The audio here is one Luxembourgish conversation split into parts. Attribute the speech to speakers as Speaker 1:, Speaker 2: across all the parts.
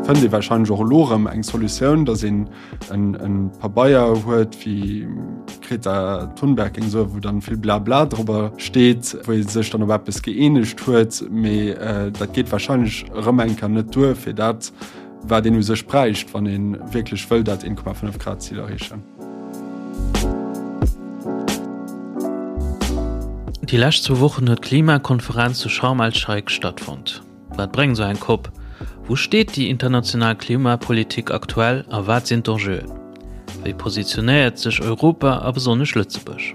Speaker 1: Fënnt ee warscheinlech och elo erëm eng Solutioun, datt een en Pabeier huet, wéi d'Greta Thunberg géing soen, wou dann vill Blabla drobber steet, wou ee sech dann op eppes gëeenegt huet. Mee dat geet warscheinlech erëm eng Kéier net duer fir dat, wat een u sech bräicht, wann ee wierklech wëll dat 1,5 Grad Zil erreechen.
Speaker 2: Déi lescht zwou Wochen huet d'Klimakonferenz zu Sharm el-Sheikh stattfonnt. Wat bréngt esou eng Cop? Wou steet déi international Klimapolitik aktuell a wat sinn d'Enjeuen? Wéi positionéiert sech Europa a besonnesch Lëtzebuerg?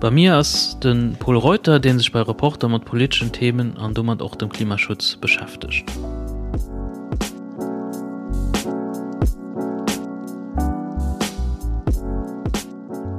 Speaker 2: Bei mir ass de Pol Reuter, dee sech bei Reporter mat politeschen Themen an domat och dem Klimaschutz beschäftegt.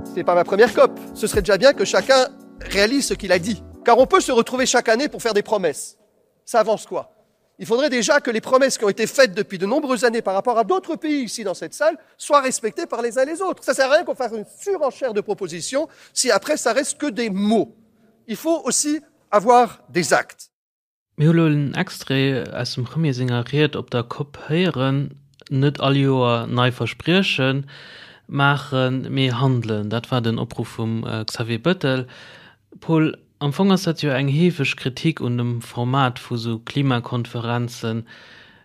Speaker 3: Ce n'est pas ma première COP. Ce serait déjà bien que chacun réalise ce qu'il a dit. Car on peut se retrouver chaque année pour faire des promesses. Ça avance quoi Il faudrait déjà que les promesses qui ont été faites depuis de nombreuses années par rapport à d'autres pays ici dans cette salle soient respectées par les uns et les autres. Ça sert à rien qu'on fasse une surenchère de propositions si après ça reste que des mots. Il faut aussi avoir des actes.
Speaker 2: Mir hu lo en Extrait aus dem Premier senger Ried op der Cop héieren, Net all Joer nei Versprieche maachen, mee handelen. Dat war den Opruff vum Xavier Bettel. Paul, am Fong ass dat jo eng heefeg Kritik un dem Format vu sou Klimakonferenzen.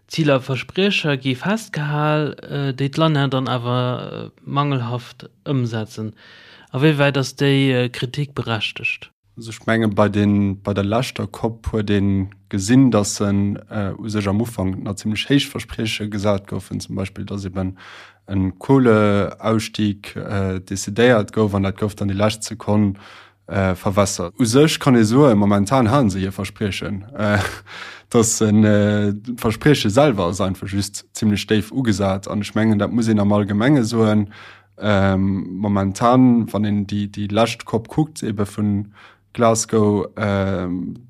Speaker 2: Ziler a Verspriecher gi festgehal, déi d'Länner dann awer mangelhaft ëmsetzen. A wéi wäit ass déi Kritik berechtegt?
Speaker 1: Also ech menge bei den, bei der leschter Cop huet ee gesinn, datt se u sech am Ufank nach zimmlech héich Versprieche gesat goufen, zum Beispill datt eben e Kohleausstieg decidéiert gouf an dat gouf dann déi lescht Sekonn verwässert. U sech kann ee soen, momentan hale se hir Verspriechen, datt se d'Versprieche selwer ass einfach just zimmlech déif ugesat an ech mengen dat muss een am Allgemenge soen, Momentan, wann een déi, déi lescht Cop kuckt, ebe vun Glasgow,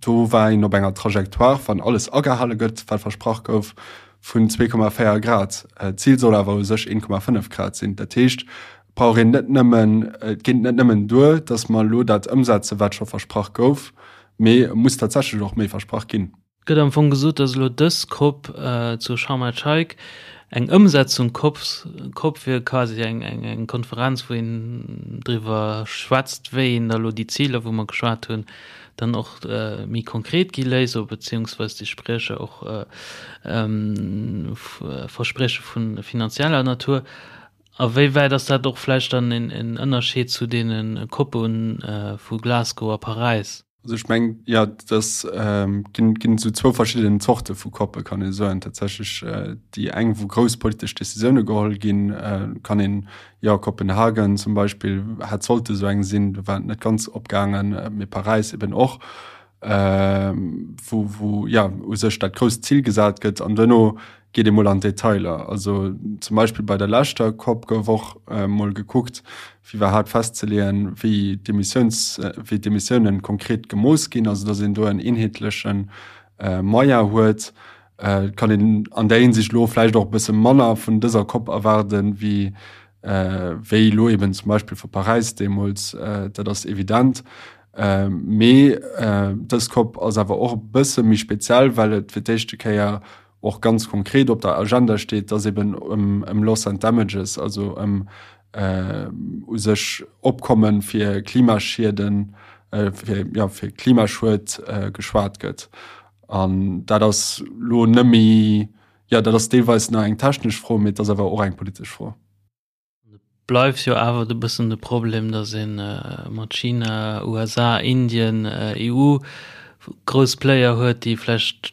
Speaker 1: do war een op enger Trajectoire, wann alles agehale gëtt, wat versprach gouf, vun 2,4 Grad. D'Zil soll awer u sech 1,5 Grad sinn. Dat heescht, et brauch een net nëmmen, et geet net nëmmen duer, datt mer elo dat ëmsetzen, wat scho versprach gouf, mee et muss tatsächlech och méi versprach ginn.
Speaker 2: Gëtt am Fong gesot, datt elo dës Cop zu Sharm el-Sheikh eng Ëmsetzung Cop Cop wier, quasi eng eng Konferenz, wou een driwwer schwätzt, wéi een da elo déi Ziler, wou mer geschwat hunn, dann och méi konkret gi léisst oder beziehungsweis déi Spriecher och Versprieche vu finanzieller Natur. A wéi wäit ass dat och vläicht dann en Ënnerscheed zu deene Coppe vu Glasgow a Paräis?
Speaker 1: Also ech meng ja das ähm, ginn ginn sou zwou verschiddenen Zorte vu Koppe kann ee soen. Tatsächlech äh, déi eng wou grouss politesch Decisioune geholl ginn, äh, kann een ja Kopenhagen zum Beispill hätt sollte sou eng sinn, do war et net ganz opgaangen, äh, mee Paräis eben och, äh, wou wou ja u sech dat grousst Zil gesat gëtt an duerno geet ee mol an d'Detailer. Also zum Beispill bei der leschter COP gouf och mol gekuckt, fir iwwerhaapt festzeleeën, wéi d'Emissiouns, wéi d'Emissiounen konkret gemooss ginn, also datt een do en eenheetleche Moyen huet. Et kann een an där Hinsicht elo vläicht och e bësse manner vun dëser COP erwaarden, wéi wéi elo eben zum Beispill vu Paräis deemools, dat ass evident. Mee dës COP ass awer och e bësse méi speziell, well et fir d'éischte Kéier och ganz konkret op der Agenda steet, dass eben ëm, ëm Loss and Damages, also ëm u sech Opkomme fir Klimaschieden, fir, ja, fir Klimaschued geschwat gëtt. An dat ass lo net méi, jo, dat ass deelweis nach eng technesch Fro, mee et ass awer och eng politesch Fro.
Speaker 2: Et bleift jo awer e bëssen de Problem, datt ee mat China, USA, Indien, EU grouss Player huet, déi vläicht,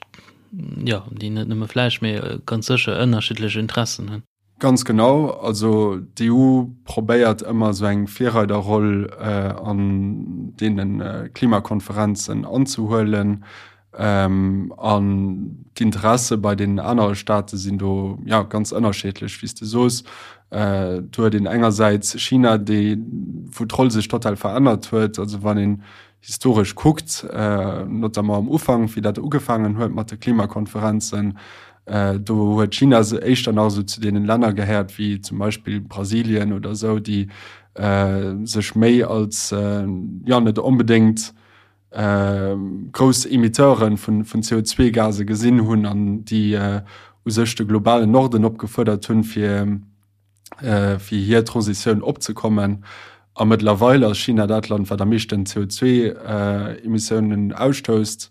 Speaker 2: jo, déi net nëmme vläicht, mee ganz sécher ënnerschiddlech Interessen hunn.
Speaker 1: Ganz genau. Also d'EU probéiert ëmmer esou eng Virreiderroll an deene Klimakonferenzen anzehuelen. An d'Interesse bei deenen anere Staate sinn do ja ganz ënnerscheedlech, wéi s de soos. Do huet een engersäits China, déi, wou d'Roll sech total verännert huet. Also wann een historesch kuckt, notamment am Ufank, wéi dat ugefaangen huet mat de Klimakonferenzen, do huet China éischter nach esou zu deenen Länner gehéiert wéi zum Beispill Brasilien oder esou, déi sech méi als, jo net onbedéngt. grouss Emitteure vun CO2-Gase gesinn hunn an déi u sech de globalen Norden opgefuerdert hunn, fir fir hir Transitioun opzekommen. A mëttlerweil ass China dat Land, wat am meeschten CO2-Emissiounen ausstousst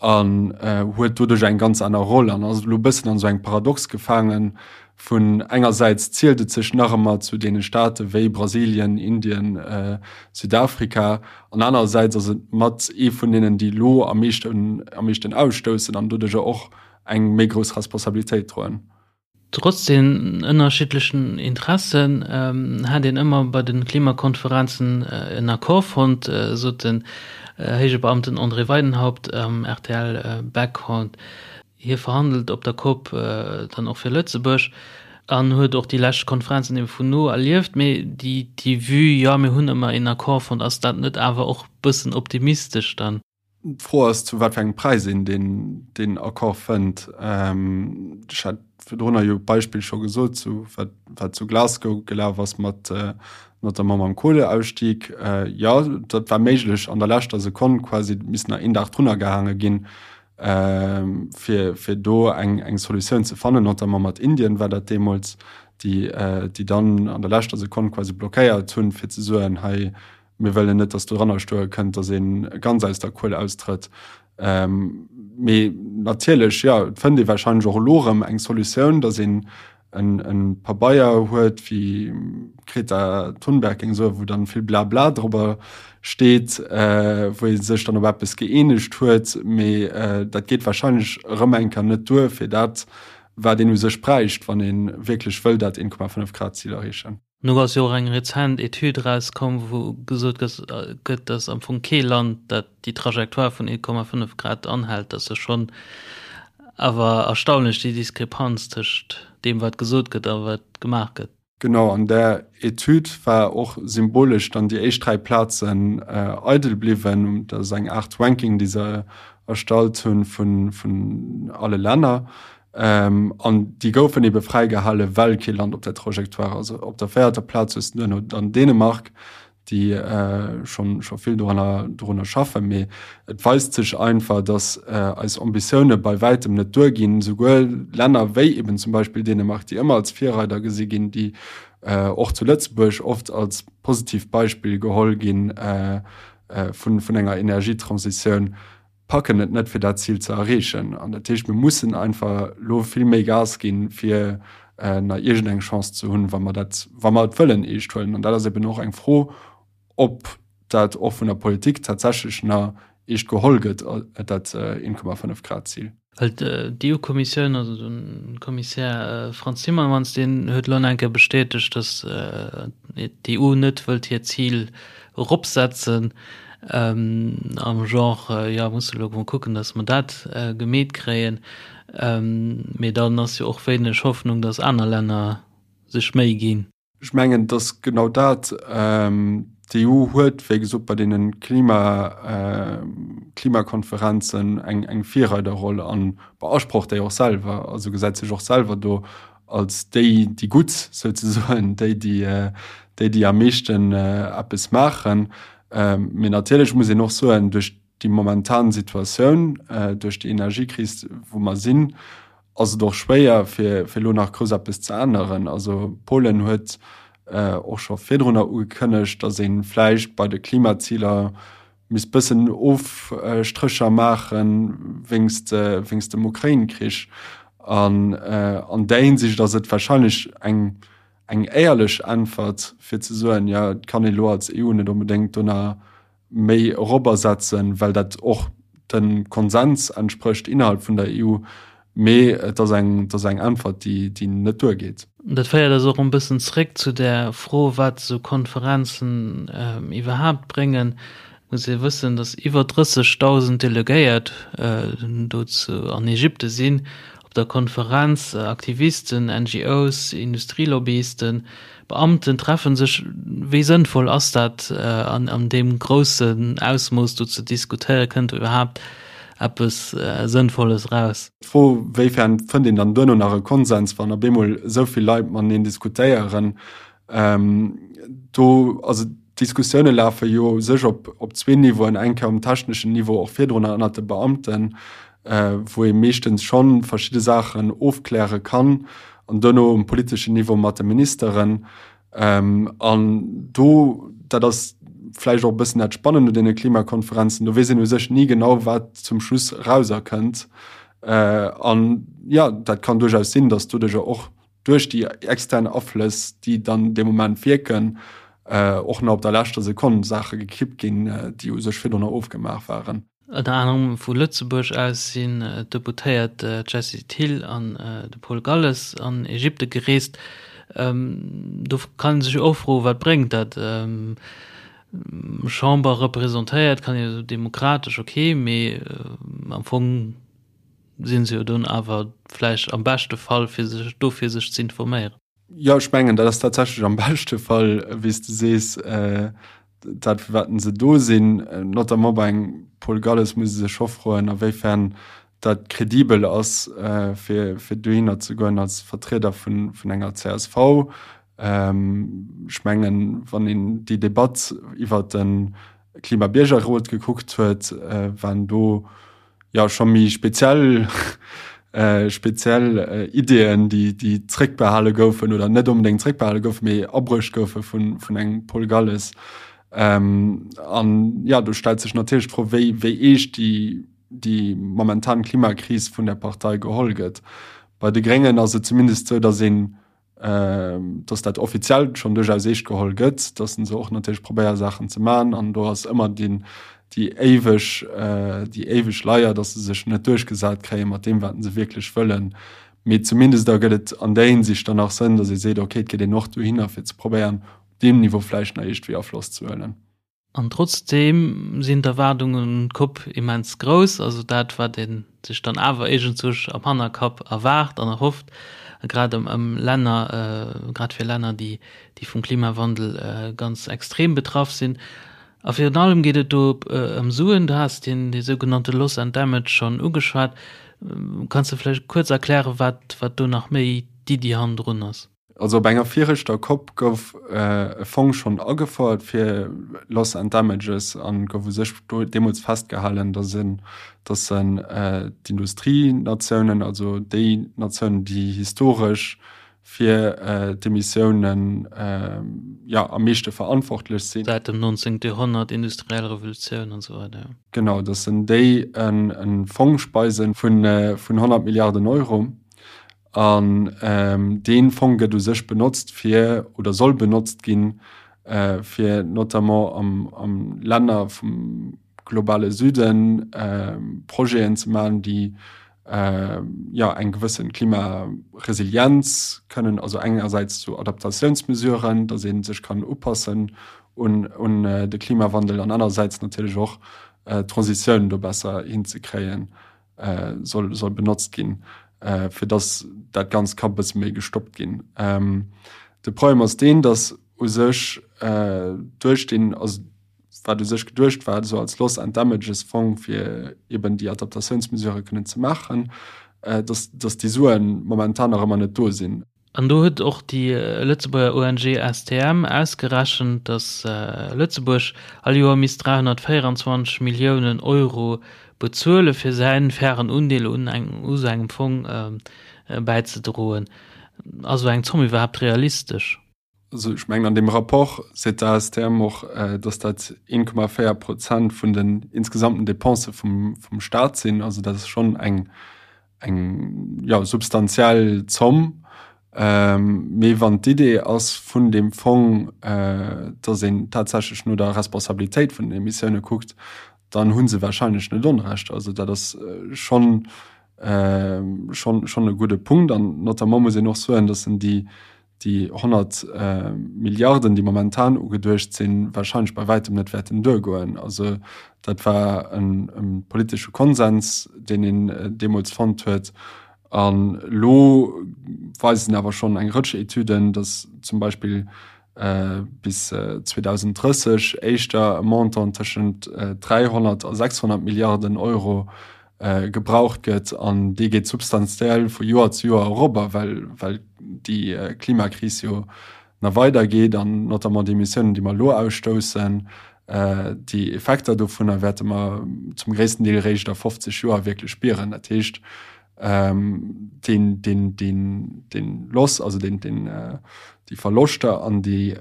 Speaker 1: an huet doduerch eng ganz aner Roll an ass elo e bëssen an esou engem Paradox gefaangen, vun engersäits zielt et sech nach ëmmer zu deene Staate wéi Brasilien, Indien, Südafrika an anerersäits ass et mat ee vun deenen, déi elo am meeschten am meeschten ausstoussen an doduercher och eng méi grouss Responsabilitéit droen.
Speaker 2: Trotz den ënnerschiddlechen Interessen hätt een ëmmer bei de Klimakonferenzen en Accord fonnt, sot den héije Beamten André Weidenhaupt am rtl Background. Hie verhandelt op der Cop dann och fir Lëtzebuerg an huet och déi lescht Konferenzen ebe vun no erlieft. Mee déi Vue, jo mir hunn ëmmer een Accord fonnt, ass dat net awer och bëssen optimistesch dann?
Speaker 1: D'Fro ass, zu wat fir engem Präis een deen Accord fënnt. Ech hat virdrunner jo d'Beispill scho gesot, zu wat wat zu Glasgow gelaf ass mat notamment mam Kohleausstieg. Jo, dat war méiglech an der leschter Sekonn quasi, et misst nach een Dag drunner gehaange ginn, fir fir do eng eng Solutioun ze fannen, notamment mat Indien war dat deemools, déi déi dann an der leschter Sekonn quasi blockéiert hunn, fir ze soen, hei Mir wëllen net, datt doranner stoe kënnt, datt ee ganz aus der Kuel austrëtt. Mee natierlech, jo, et fënnt ee warscheinlech och elo erëm eng Solutioun, datt een e Pabeier huet, wéi d'Greta Thunberg géing soen, wou dann vill Blabla drobber steet, wou ee sech dann op eppes gëeenegt huet. Mee dat geet warscheinlech erëm eng Kéier net duer fir dat, wat een u sech bräicht, wann ee wierklech wëll dat 1,5 Grad Zil erreechen.
Speaker 2: Nu ass jo och eng rezent Etüd erauskomm, wou gesot gëtt, datt am Fong kee Land, dat déi Trajectoire vun 1,5 Grad anhält. Dat ass jo schonn awer erstaunlech, déi Diskrepanz tëscht deem, wat gesot gëtt a wat gemaach gëtt.
Speaker 1: Genau, an där Etüd war och symbolesch dann déi éischt 3 Plazen eidel bliwwen. Dat ass eng Aart Ranking, déi se erstallt hunn vun alle Länner. Ähm, an déi goufen ebe fräigehale well kee Land op der Trajectoire ass. Op der véierter Plaz hues du duerno dann Dänemark, déi äh, schon, scho vill doranner, dorunner schaffen. Mee et weist sech einfach, dass äh, eis Ambitioune bei wäitem net duerginn. Souguer Länner wéi eben zum Beispill Dänemark, déi ëmmer als Virreider gesi ginn, déi äh, och zu Lëtzebuerg oft als positivt Beispill geholl ginn äh, äh, vun, vun enger Energietransitioun, packen et net fir dat Zil ze erreechen. An dat heescht, mir mussen einfach elo vill méi Gas ginn, fir nach iergendeng Chance ze hunn, wa mer dat, wa mer et wëllen eescht huelen. An dat ass eben och eng Fro, ob dat och vun der Politik tatsächlech nach eescht geholl gëtt, dat 1,5 Grad Zil.
Speaker 2: Well d'EU-Kommissioun, also de Kommissär Frans Timmermans, deen huet elo nach eng Kéier bestätegt, datt d'EU net wëllt hiert Zil eropsetzen, am Genre, jo, musse elo mol kucken, datt mer dat gemeet kréien. Mee dann ass jo och wéineg Hoffnung, datt aner Länner sech Méi ginn.
Speaker 1: Ech mengen, et ass genau dat. D'EU huet, wéi gesot, bei deene Klima, Klimakonferenzen eng, eng Virreiderroll a beasprocht déi och selwer, also gesäit sech och selwer do als déi, déi Gutt souzesoen, déi, déi, déi, déi am meeschten eppes maachen. Mee natierlech muss een och soen, duerch déi momentan Situatioun, duerch déi Energiekris, wou mer sinn, ass et och schwéier, fir elo nach grouss eppes ze änneren. Also Polen huet och scho virdrunner ugekënnegt, datt ee vläicht bei de Klimaziler misst bëssen Ofstrécher maache wéinst dem Ukrain-Krich. An an där Hinsicht ass et warscheinlech eng éierlech Äntwert, fir ze soen, jo et kann ee lo als EU net onbedéngt do nach méi eropersetzen, well dat och dem Konsens entsprécht innerhalb vun der EU, mee et ass eng, et ass eng Äntwert, déi, déi net duergeet.
Speaker 2: Dat féiert eis och en bëssen zréck zu där Fro, wat esou Konferenzen iwwerhaapt bréngen. Et muss ee wëssen, datt iwwer 30.000 Delegéiert do zu an Ägypte sinn op der Konferenz, Aktivisten, NGOs, Industrielobbyisten, Beamten treffen sech. Wéi sënnvoll ass dat an deem groussen Ausmooss do ze diskutéieren? Kënnt do iwwerhaapt eppes Sënnvolles eraus?
Speaker 1: D'Fro, wéifern fënnt een dann duerno nach e Konsens, wann op eemol esou vill Leit mateneen diskutéieren, do, also. D'Diskussioune lafe jo u sech op op zwee Niveauen, eng Kéier um techneschen Niveau, och virdrun ënnert de Beamten, wou ee meeschtens scho verschidde Saachen ofkläre kann, an duerno um politeschen Niveau mat de Ministeren. An do, dat ass vläicht och e bëssen dat Spannend un deene Klimakonferenzen, do weess een u sech ni genau, wat zum Schluss erauserkënnt. An jo, dat kann duerchaus sinn, datt doduercher och duerch déi extern Aflëss, déi dann dee Moment wierken, och nach op der leschter Sekonn Saache gekippt ginn, déi u sech virdrunner ofgemaach waren.
Speaker 2: Ënner anerem vu Lëtzebuerg aus sinn d'Deputéiert Jessie Thill an de Paul Galles an Ägypte gereest. Do kann ee sech och froen, wat bréngt dat? Chamber representéiert, kann ee demokratesch, ok, mee am Fong sinn se jo dunn awer vläicht am beschte Fall fir sech do fir sech ze informéieren.
Speaker 1: Jo, ech mengen, dat ass tatsächlech am beschte Fall, wéi s de sees, dat fir wat se do sinn. Notamment bei engem Paul Galles muss ee sech scho froen, a wéifern dat kredibel ass, fir fir dohinner ze goen als Vertrieder vun vun enger csv. Ech mengen, wann een déi Debatt iwwert de Klimabiergerrot gekuckt huet, waren do jo scho méi speziell speziell Ideeën, déi déi zréckbehale goufen oder net onbedéngt zréckbehale goufen, mee abruecht goufe vun vun engem Paul Galles. An jo, do stellt sech natierlech d'Fro, wéi wéi eescht déi déi momentan Klimakris vun der Partei geholl gëtt. Bei de Gréngen ass et zumindest esou, datt een dass dat offiziell schonn duerchaus eescht geholl gëtt, dass se och natierlech probéiere Saachen ze maachen an do ass ëmmer deen déi éiweg déi éiweg Leier, dass se sech net duerchgesat kréie mat deem wat se wierklech wëllen. Mee zumindest da gëtt et an där Hinsicht dann nach Sënn, dass ee seet, okay, et geet een och dohinner fir ze probéieren op deem Niveau vläicht nach iergendwéi Afloss ze huelen.
Speaker 2: An trotzdeem sinn d'Erwaardungen un d'Coupe immens grouss. Also dat, wat ee sech dann awer iergendzwousch am Hannerkapp erwaart an erhofft, grad ëm Länner, grad fir Länner, déi vum Klimawandel ganz extrem betraff sinn. A virun allem geet et do ëm Suen. Du has deen dee sougenannte Loss and Damage schonn ugeschwat. Kanns de vläicht kuerz erklären, wat do nach méi d'Iddi hannendrun ass?
Speaker 1: Also op enger viregter Cop gouf e Fong schonn agefouert fir Loss and Damages an gouf u sech do deemools festgehalen, datt en, datt en d'Industrienatiounen, also déi Natiounen, déi historesch fir d'Emissiounen, jo, am meeschte verantwortlech sinn.
Speaker 2: Säit dem 19. Joerhonnert, industriell Revolutioun an esou weider, jo.
Speaker 1: Genau, datt en déi e Fong speisen vun 100 Milliarden Euro. An dee Fong gëtt u sech benotzt fir, oder soll benotzt ginn, fir notamment am Länner vum globale Süden Projeten ze maachen, déi jo eng gewësse Klimaresilienz kënnen, also engersäits zu Adaptatiounsmesuren, datt ee sech kann upassen un de Klimawandel an anerersäits natierlech och d'Transitioun do besser hinzekréien. soll, soll benotzt ginn, fir dass dat Ganzt ka bësse méi gestoppt ginn. De Problem ass deen, dass u sech duerch deen, also wat u sech geduecht war, esou als Loss and Damages Fong, fir eben déi Adaptatiounsmesurë kënnen ze maachen, dass, dass déi Sue momentan nach ëmmer net do sinn.
Speaker 2: An do huet och déi Lëtzebuerger ONG STM ausgerechent, datt Lëtzebuerg all Joer misst 324 Milliounen Euro bezuele fir säin fairen Undeel un u sou engem Fong bäizedroen. Ass esou eng Zomm iwwerhaapt realistesch?
Speaker 1: Also ech mengen an deem Rapport seet d'ASTM och, datt dat 1,4 Prozent vun den insgesamten Depensë vum Staat sinn. Also dat ass schonn eng eng jo, substantiell Zomm. Mee wann d'Idee ass vun deem Fong, datt een tatsächlech no der Responsabilitéit vun den Emissioune kuckt, dann hu se warscheinlech net Onrecht. Also dat ass schonn, schonn, schonn e gudde Punkt. An notamment muss een och soen, datt en déi, déi 100 Milliarden, déi momentan ugeduecht sinn, wahrscheinlech bei wäitem net wäerten duergoen. Also dat war e politesche Konsens, deen een deemools fonnt huet. An elo weisen awer schonn eng Rëtsch Etüden, datt zum Beispill bis 2030 éischter e Montant tëschent 300 a 600 Milliarden Euro gebraucht gëtt an dee geet substantiell vu Joer zu Joer erop, well well déi Klimakris jo. nach weider geet an notamment déi Emissiounen, déi mer elo ausstoussen, déi Effekter dovunner wäerte mer zum gréissten Deel eréischt a 50 Joer wierklech spieren. Dat heescht, deen, deen, deen, deen Loss, also deen, deen, déi Verloschter an déi,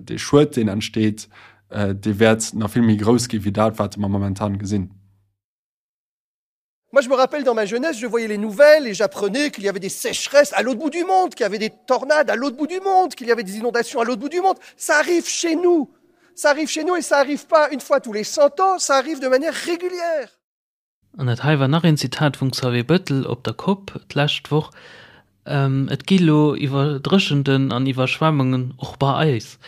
Speaker 1: dee Schued, deen entsteet, dee wäert nach vill méi grouss gi wéi dat, wat mer momentan gesinn.
Speaker 3: Moi, je me rappelle dans ma jeunesse, je voyais les nouvelles et j'apprenais qu'il y avait des sécheresses à l'autre bout du monde, qu'il y avait des tornades à l'autre bout du monde, qu'il y avait des inondations à l'autre bout du monde. Ça arrive chez nous. Ça arrive chez nous et ça arrive pas une fois tous les 100 ans, ça arrive de manière régulière.
Speaker 2: An dat hei war nach een Zitat vum Xavier Bettel op der Cop d'lescht Woch, Et gi lo Iwwerdréchenten an Iwwerschwemmungen och bei eis.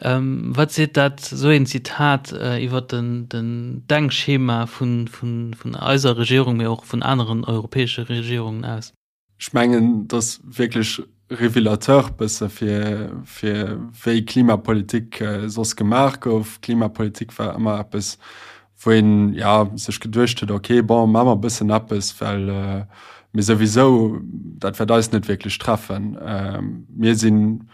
Speaker 2: Wat seet dat, esou een Zitat, iwwer den Denkschema vun eiser Regierung, mee och vun aneren europäesche Regierungen aus?
Speaker 1: Ech mengen, et ass wierklech révélateur bësse fir, fir wéi Klimapolitik soss gemaach gouf. Klimapolitik war ëmmer eppes, wou een, ja, sech geduecht huet, okay, bon, maache mer e bëssen eppes, well mir souwisou, dat wäert eis net wierklech treffen. Mir sinn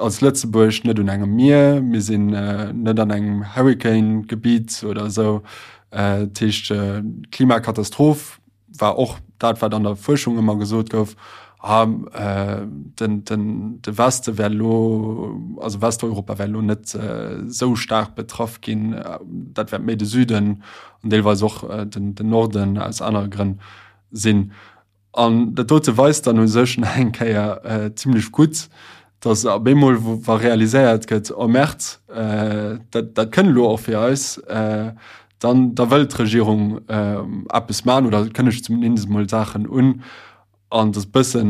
Speaker 1: als Lëtzebuerg net un engem Mier, mir sinn net an engem Hurricane-Gebitt oder esou. Dat heescht, d'Klimakatastroph war och dat wat an der Fuerschung ëmmer gesot gouf, ah, den, den, de Weste wär lo, also Westeuropa wär lo net esou staark betraff ginn, dat wäert méi de Süden an deelweis och den, den Norden aus anere Grënn sinn. An dat dote weist dann u sech nach eng Kéier zimlech gutt, datt op eemol wa realiséiert gëtt, oh Merd, dat, dat kënnt elo och fir eis, dann da wëllt d'Regierung eppes maachen oder kënnegt zumindest emol Saachen un. An dat ass bëssen,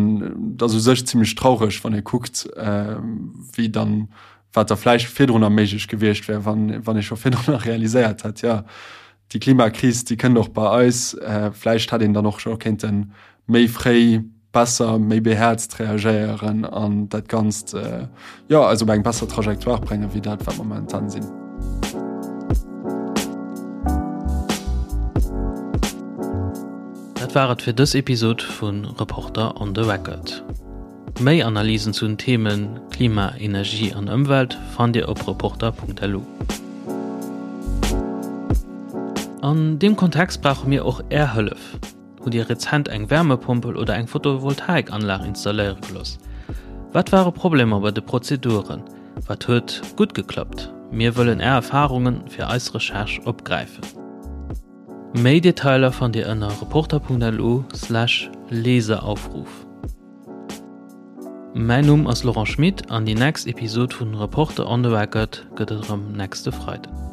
Speaker 1: dat ass u sech zimlech traureg, wann ee kuckt, wéi dann, wat da vläicht virdrunner méiglech gewiescht wär, wann, wann ee scho virdrunner realiséiert hätt, jo, déi Klimakris, déi kënnt och bei eis. Vläicht hätt een dann och scho kéinte méi fréi besser, méi behäerzt reagéieren an dat Ganzt, jo, eis op eng besser Trajectoire bréngen, wéi dat, wat mer momentan sinn.
Speaker 2: Dat war et fir dës Episod vu Reporter on the Record. Méi Analysen zu den Themen Klima, Energie an Ëmwelt fannt Dir op reporter.lu. An deem Kontext brauche mir och Är Hëllef. Hutt Dir rezent eng Wärmepompel oder eng Photovoltaikanlag installéiere gelooss? Wat ware Problemer bei de Prozeduren? Wat huet gutt geklappt? Mir wëllen Är Erfarunge fir eis Recherche opgräifen. Méi Detailer fannt Dir ënner reporter.lu/Leseraufruf. Mäin Numm ass Laurent Schmit an déi nächst Episod vun Reporter on the Record gëtt et erëm nächste Freiden.